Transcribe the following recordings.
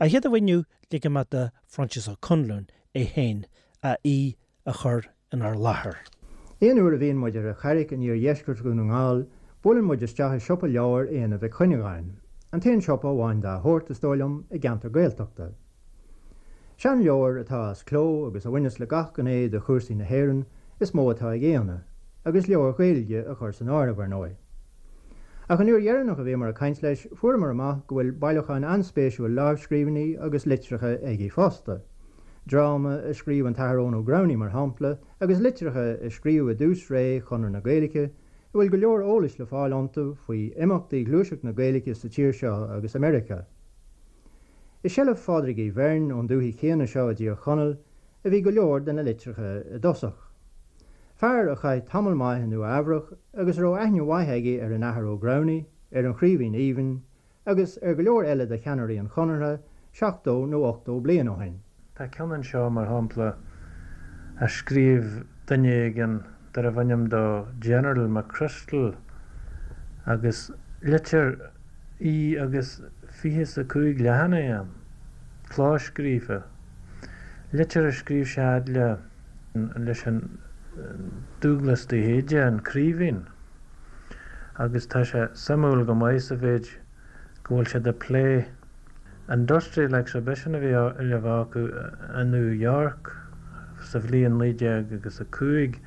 A chéad amháin inniu, ligfidh mé do Phroinsias Ó Conluain é féin a aoi a chur inár láthair. Aon uair a bhíonn muid ar an Charraic in iardheisceart Dhún na nGall, buaileann muid isteach i siopa leabhar Éanna Mhic Chuinneagáin, an t-aon siopa amháin dá shórt, is dóigh liom, i gceantar Gaeltachta. Seanleabhair atá as cló agus a bhaineas le gach gné de chúrsaí na hÉireann is mó atá ag Éanna, agus leabhair Ghaeilge a chur san áireamh, ar ndóigh. Ach an uair dheireanach a bhíomar ag caint leis, fuaireamar amach go bhfuil bailiúchán an-spéisiúil lámhscríbhinní agus litreacha aige fosta. Dráma a scríobh an tAthair Eoin Ó Gramhnaigh, mar shampla, agus litreacha a scríobhadh i dtús ré Chonradh na Gaeilge, a bhfuil go leor eolais le fáil iontu faoi imeachtaí ghluaiseacht na Gaeilge sa tír seo agus i Meiriceá. I seilbh Phádraig Uí Bheirn ón dúthaigh chéanna seo i dTír Chonaill a bhí go leor de na litreacha i dtosach. Fear a chaith tamall maith i Nua Eabhrach agus a raibh aithne mhaith aige ar an Athair Ó Gramhnaigh, ar an Chraoibhín Aoibhinn agus ar go leor eile de cheannairí an Chonartha 70 nó 80 bliain ó shin. Tá ceann anseo, mar shampla, a scríobh duine éigin darbh ainm dó General McChrystal agus litir í agus 25 leathanach ann, clóscríofa. Litir a scríobh sé fhad le. leis an Dúglas de hÍde, an Craoibhín, agus tá sé suimiúil go maith sa mhéid go bhfuil siad ag plé Industrial Exhibition a bhí le bheith acu i New York sa bhliain 19 agus 5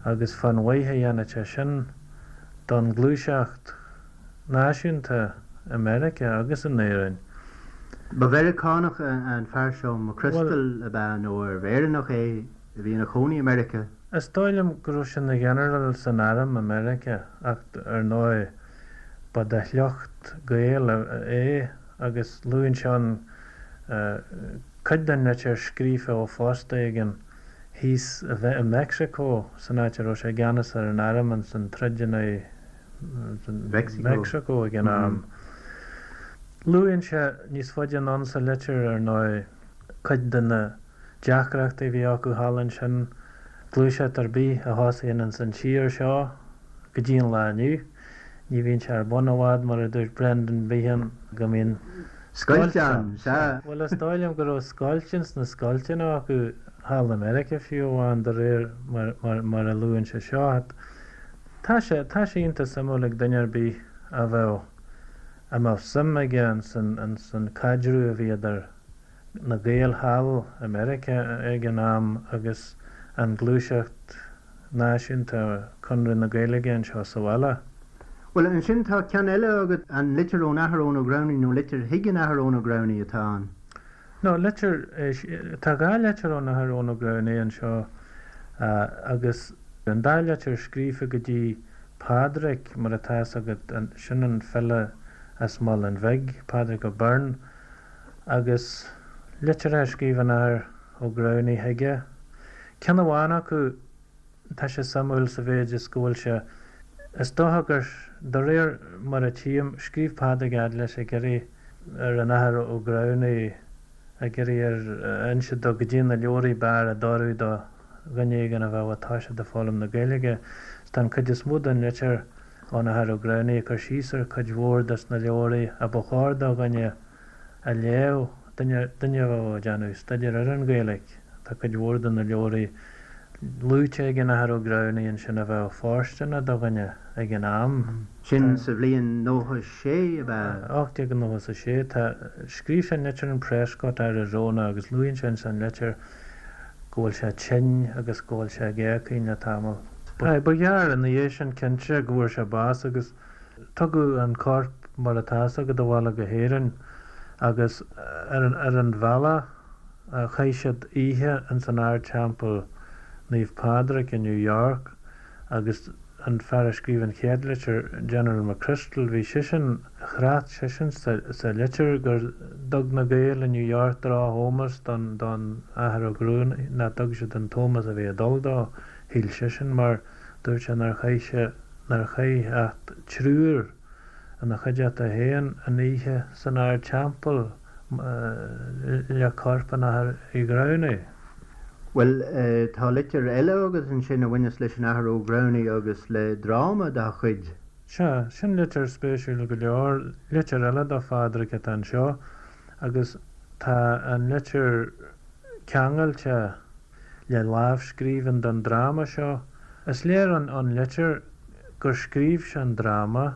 agus fán mhaith a dhéanfadh sé sin don ghluaiseacht náisiúnta i Meiriceá agus in Éirinn. Ba Mheiriceánach an fear seo, McChrystal, ab ea nó arbh Éireannach é a bhí ina chónaí i Meiriceá? Is dóigh liom go raibh sé ina ghinearál san arm i Meiriceá ach ar ndóigh ba de shliocht Gael é agus luann sé ann cuid den litir scríofa ó phost éigin thíos i Meicsiceo san áit a raibh sé i gceannas ar an arm ins an troid in aghaidh Meicsiceo ag an am. Luann sé níos faide anonn sa litir, ar ndóigh, cuid de na deacrachtaí a bhí acu thall ansin, gluaiseacht ar bith a thosaíonn ins an tír seo go dtí an lá inniu, ní bhíonn sé ar bun i bhfad, mar a dúirt Brendan Behan, go mbíonn scoilt ann. Sea. Bhuel, is dóigh liom go raibh scoilt ins na scoilteanna acu thall i Meiriceá fiú amháin, de réir mar a luann sé seo. Tá sé, tá sé iontach suimiúil ag duine ar bith a bheadh, a mbeadh suim aige ins an, ins an caidreamh a bhí idir na Gaeil thall i Meiriceá ag an am agus an ghluaiseacht náisiúnta, Conradh na Gaeilge anseo sa bhaile. Bhuel, ansin tá ceann eile agat, an litir ón Athair Eoin Ó Gramhnaigh nó litir chuig an Athair Eoin Ó Gramhnaigh atá ann? No, litir, tá dhá litir ón Athair Eoin Ó Gramhnaigh anseo agus an dá litir scríofa go dtí Pádraig, mar atá fhios agat, sin an file as Málainn Bhig, Pádraig Ó Beirn, agus litreacha a scríobh an Athair Ó Gramhnaigh chuige. Ceann amháin acu, Tá sé suimiúil sa mhéid is go bhfuil sé, is dócha gur, de réir mar a tchím, scríobh Pádraig fhad leis ag iarraidh ar an Athair Ó Gramhnaigh, ag iarraidh air a inse dó goidé na leabhraí b'fhearr a d'oirfeadh do dhuine éigin a bheadh ag toiseacht ag foghlaim na Gaeilge. Is tá an chuid is mó den litir ón Athair Ó Gramhnaigh ag cur síos ar chuid mhór des na leabhraí a ba chóir do dhuine a léamh, duine, duine a bheadh ag déanamh staidéir ar an Ghaeilge. Tá cuid mhór de na leabhraí luaite ag an Athair Ó Gramhnaigh ansin a bheadh fóirsteanach do dhuine ag an am. Sin sa bhliain 96, ab ea? 1896. Tá, scríobh sé an litir in Prescott, Arizona agus luann sé ins an litir go bhfuil sé tinn agus go bhfuil sé ag éagaoin le tamall. Ba ghearr ina dhiaidh sin cinnte go bhfuair sé bás agus Tugadh an corp mar atá fhios agat abhaile go hÉirinn agus ar an bhealach chaith siad oíche ins an Ardteampall Naomh Pádraig i New York agus an fear a scríobh an chéad litir, General McChrystal, bhí seisean, thrácht seisean sa litir gur dtug na Gaeil i New York droch-ómós don Athair Ó Gramhnaigh, nach dtug siad an t-ómós a bhí ag dul dó, shíl seisean, mar dúirt sé nár chaith sé nár chaith ach triúr ina chuideachta féin an oíche san Ardteampall le corp an Athar Uí Ghramhnaigh. Bhuel, tá litir eile agat ansin a bhaineas leis an Athair Ó Gramhnaigh agus le dráma dá chuid. Sea, sin litir spéisiúil go leor. Litir eile do Phádraig atá anseo agus. Tá an litir ceangailte le lámhscríbhinn den dráma seo. Is léir ón litir gur scríobh sé an dráma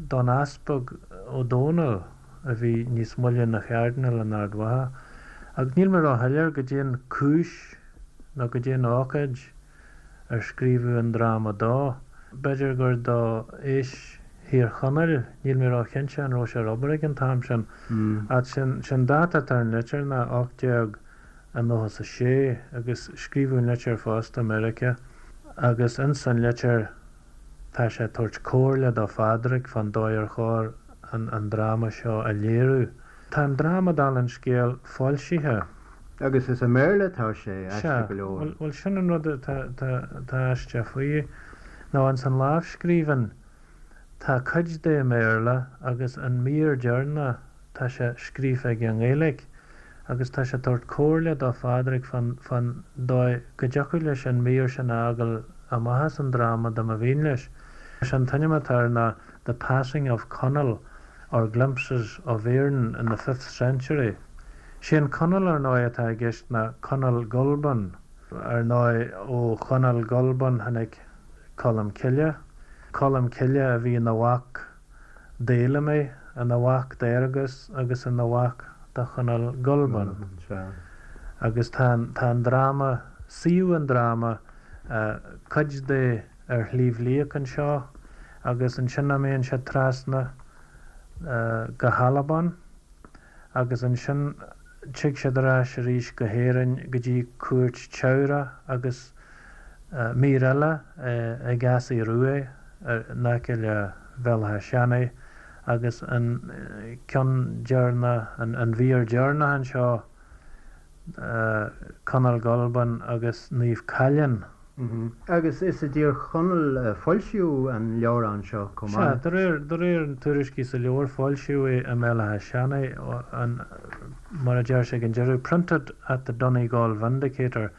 don Easpag Ó Dónaill a bhí níos moille ina Chairdinéal in Ard Mhacha. Ach níl mé róshoiléir goidé an cúis nó goidé an ócáid ar scríobhadh an dráma dó. B'fhéidir gur do Fheis Thír Chonaill, níl mé róchinnte an raibh sé ar obair ag an t-am sin. Ach sé'n dáta atá ar an litir ná 1896 agus scríobhadh an litir fosta i Meiriceá agus ins an litir tá sé ag tabhairt comhairle do Phádraig fán dóigh ar chóir an dráma seo a léiriú. Tá an dráma, dála an scéil, foilsithe. Agus is i mBéarla atá sé, aisteach go leor. Sea, bhuel sin an rud atá aisteach faoi, nó ins an lámhscríbhinn tá cuid de i mBéarla agus an mír deireanach tá sé scríofa aige i nGaeilge agus tá sé ag tabhairt comhairle do Phádraig fán dóigh go dtiocfadh leis an mír sin a fhágáil amach as an dráma dá mba mhian leis. Sé an t-ainm atá air ná The Passing of Conall or Glimpses of Erin in the Fifth Century. Sé an Conall ar ndóigh atá i gceist ná Conall Gulban. Ar ndóigh ó Chonall Gulban tháinig Colm Cille. Colm Cille a bhí ina mhac d'Fheilimí, ina mhac d'Fhearghus agus ina mhac do Chonall Gulban. Agus tá an dráma, suíomh an dráma, cuid de ar Shliabh Liag anseo agus ansin imíonn sé trasna go hAlbain agus ansin tig siad ar ais arís go hÉirinn go dtí cúirt Teamhrach agus mír eile ag Easaidh Ruaidh in aice le Béal Átha Seanaidh agus an ceann deireanach, an mhír dheireanach anseo, Conall Gulban agus Naomh Caillean. Agus is i dTír Chonaill a foilsíodh an leabhrán seo chomh Sea, maith. de réir, de réir an tuairiscí sa leabhar, foilsíodh é i mBéal Átha Seanaidh, an, mar a deir sé ag an deireadh, Printed at the Donegal Vindicator,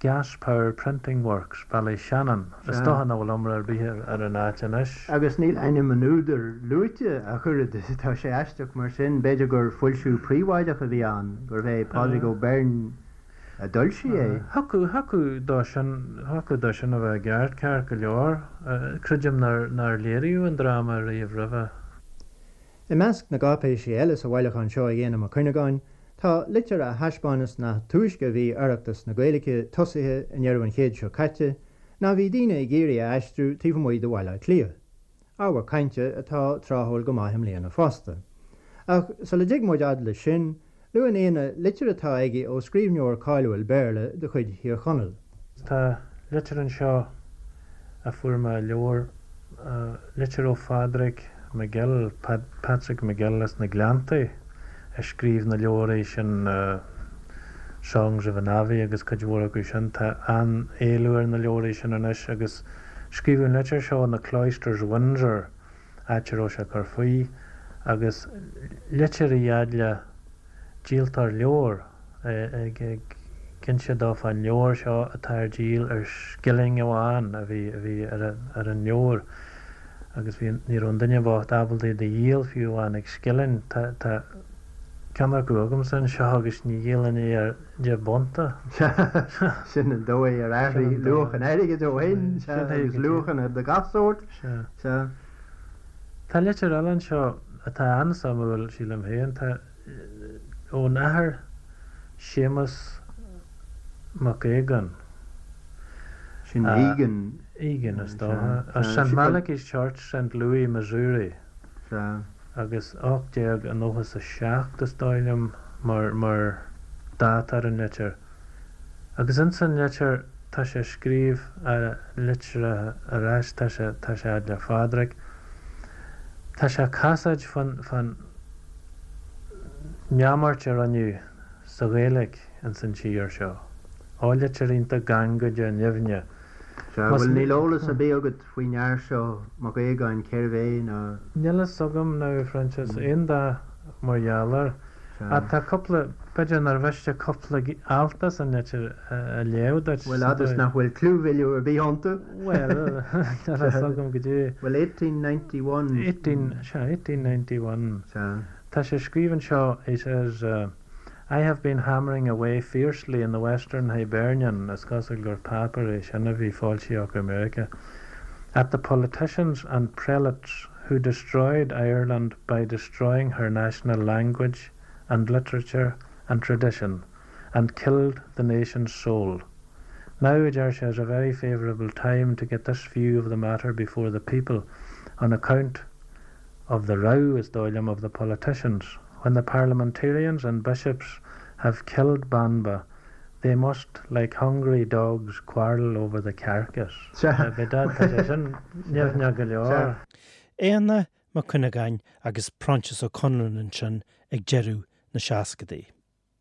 Gas Power Printing Works, Ballyshannon. Is Sea. dócha nach bhfuil iomrá ar bith ar, ar an áit anois. Agus níl ainm an údair luaite ach oiread, tá sé aisteach mar sin, b'fhéidir gur foilsiú príobháideach a bhí ann, gurbh é Pádraig Ó Beirn a d'fhoilsigh é. Thiocfadh, thiocfadh dó sin, thiocfadh dó sin a bheith i gceart, ceart go leor. Creidim nár, nár léiríodh an dráma riamh roimhe. I measc na gcáipéisí eile sa bhailiúchán seo ag Éanna Mac Cuinneagáin tá litir a thaispeáineas nach túisce a bhí Oireachtas na Gaeilge tosaithe i ndeireadh an chéid seo caite ná bhí daoine ag iarraidh a aistriú taobh amuigh de Bhaile Átha Cliath. Ábhar cainte atá tráthúil go maith i mbliana fosta. Ach sula dtig muid fhad leis sin, Luann Éanna litir atá aige ó scríbhneoir cáiliúil Béarla de chuid Thír Chonaill. Tá litir anseo a fuair mé i leabhar, litir ó Phádraig McGill, Patrick McGill as na Gleanntaí, a scríobh na leabhraí sin Songs of an Abbey agus cuid mhór acu sin. Tá an-éileamh ar na leabhraí sin anois agus scríobhadh an litir seo in The Cloisters, Windsor. áit a raibh sé ag cur faoi, agus litir í fhad le díoltóir leabhar ag inse dó fán leabhar seo atá ar díol ar scilling amháin a bhí a bhí ar ar an leabhar agus bhí ní raibh an duine bocht ábalta é do dhíol fiú amháin ag scilling. Tá tá ceann acu agamsa anseo agus ní dhíolfainn é ar deich bpunta. Sea, sin an dóigh ar athraigh luach an airgid ó shin, sea, agus luachanna de gach sórt. Sea. Sea. Tá litir eile anseo atá an-suimiúil, sílim féin. Tá ón Athair Séamus Mac Aogáin. Sin Egan. Egan, is dócha. As St. Malachy's Church, St. Louis, Missouri. Sea. Agus 1897, is dóigh liom, mar, mar dáta ar an litir. Agus ins an litir tá sé ag scríobh litir ar ais, tá sé, tá sé fhad le Phádraig. Tá sé ag casaoid fán, fán neamart a rinneadh sa Ghaeilge ins an tír seo. Ó litir iontach gangaideach nimhneach. Sea, bhuel níl eolas ar bith agat faoin fhear seo, Mac Aogáin, cérbh é ná. Níl fhios agam now, a Phroinsias, aon dath mar gheall air. Ach tá cúpla, b'fhéidir nár mhiste cúpla alt as an litir a léamh duit. Bhuel, fhad is nach bhfuil clúmhilleadh ar bith iontu. Bhuel, níl fhios agam goidé. Bhuel, 1891. 18, sea, 1891. Sea. Tá sé ag scríobh anseo, he says,. I have been hammering away fiercely in the Western Hibernian, is cosúil gur páipéar é sin a bhí foilsithe acu i Meiriceá, at the politicians and prelates who destroyed Ireland by destroying her national language and literature and tradition and killed the nation's soul. Now, deir sé, is a very favourable time to get this view of the matter before the people on account of the row, is dóigh liom, of the politicians. When the parliamentarians and bishops have killed Banba, they must, like hungry dogs, quarrel over the carcass. Bhí dad, tá sé sin nimhneach go leor. Éanna Mac Cuinneagáin agus Proinsias Ó Conluain ansin ag deireadh na seascadaí.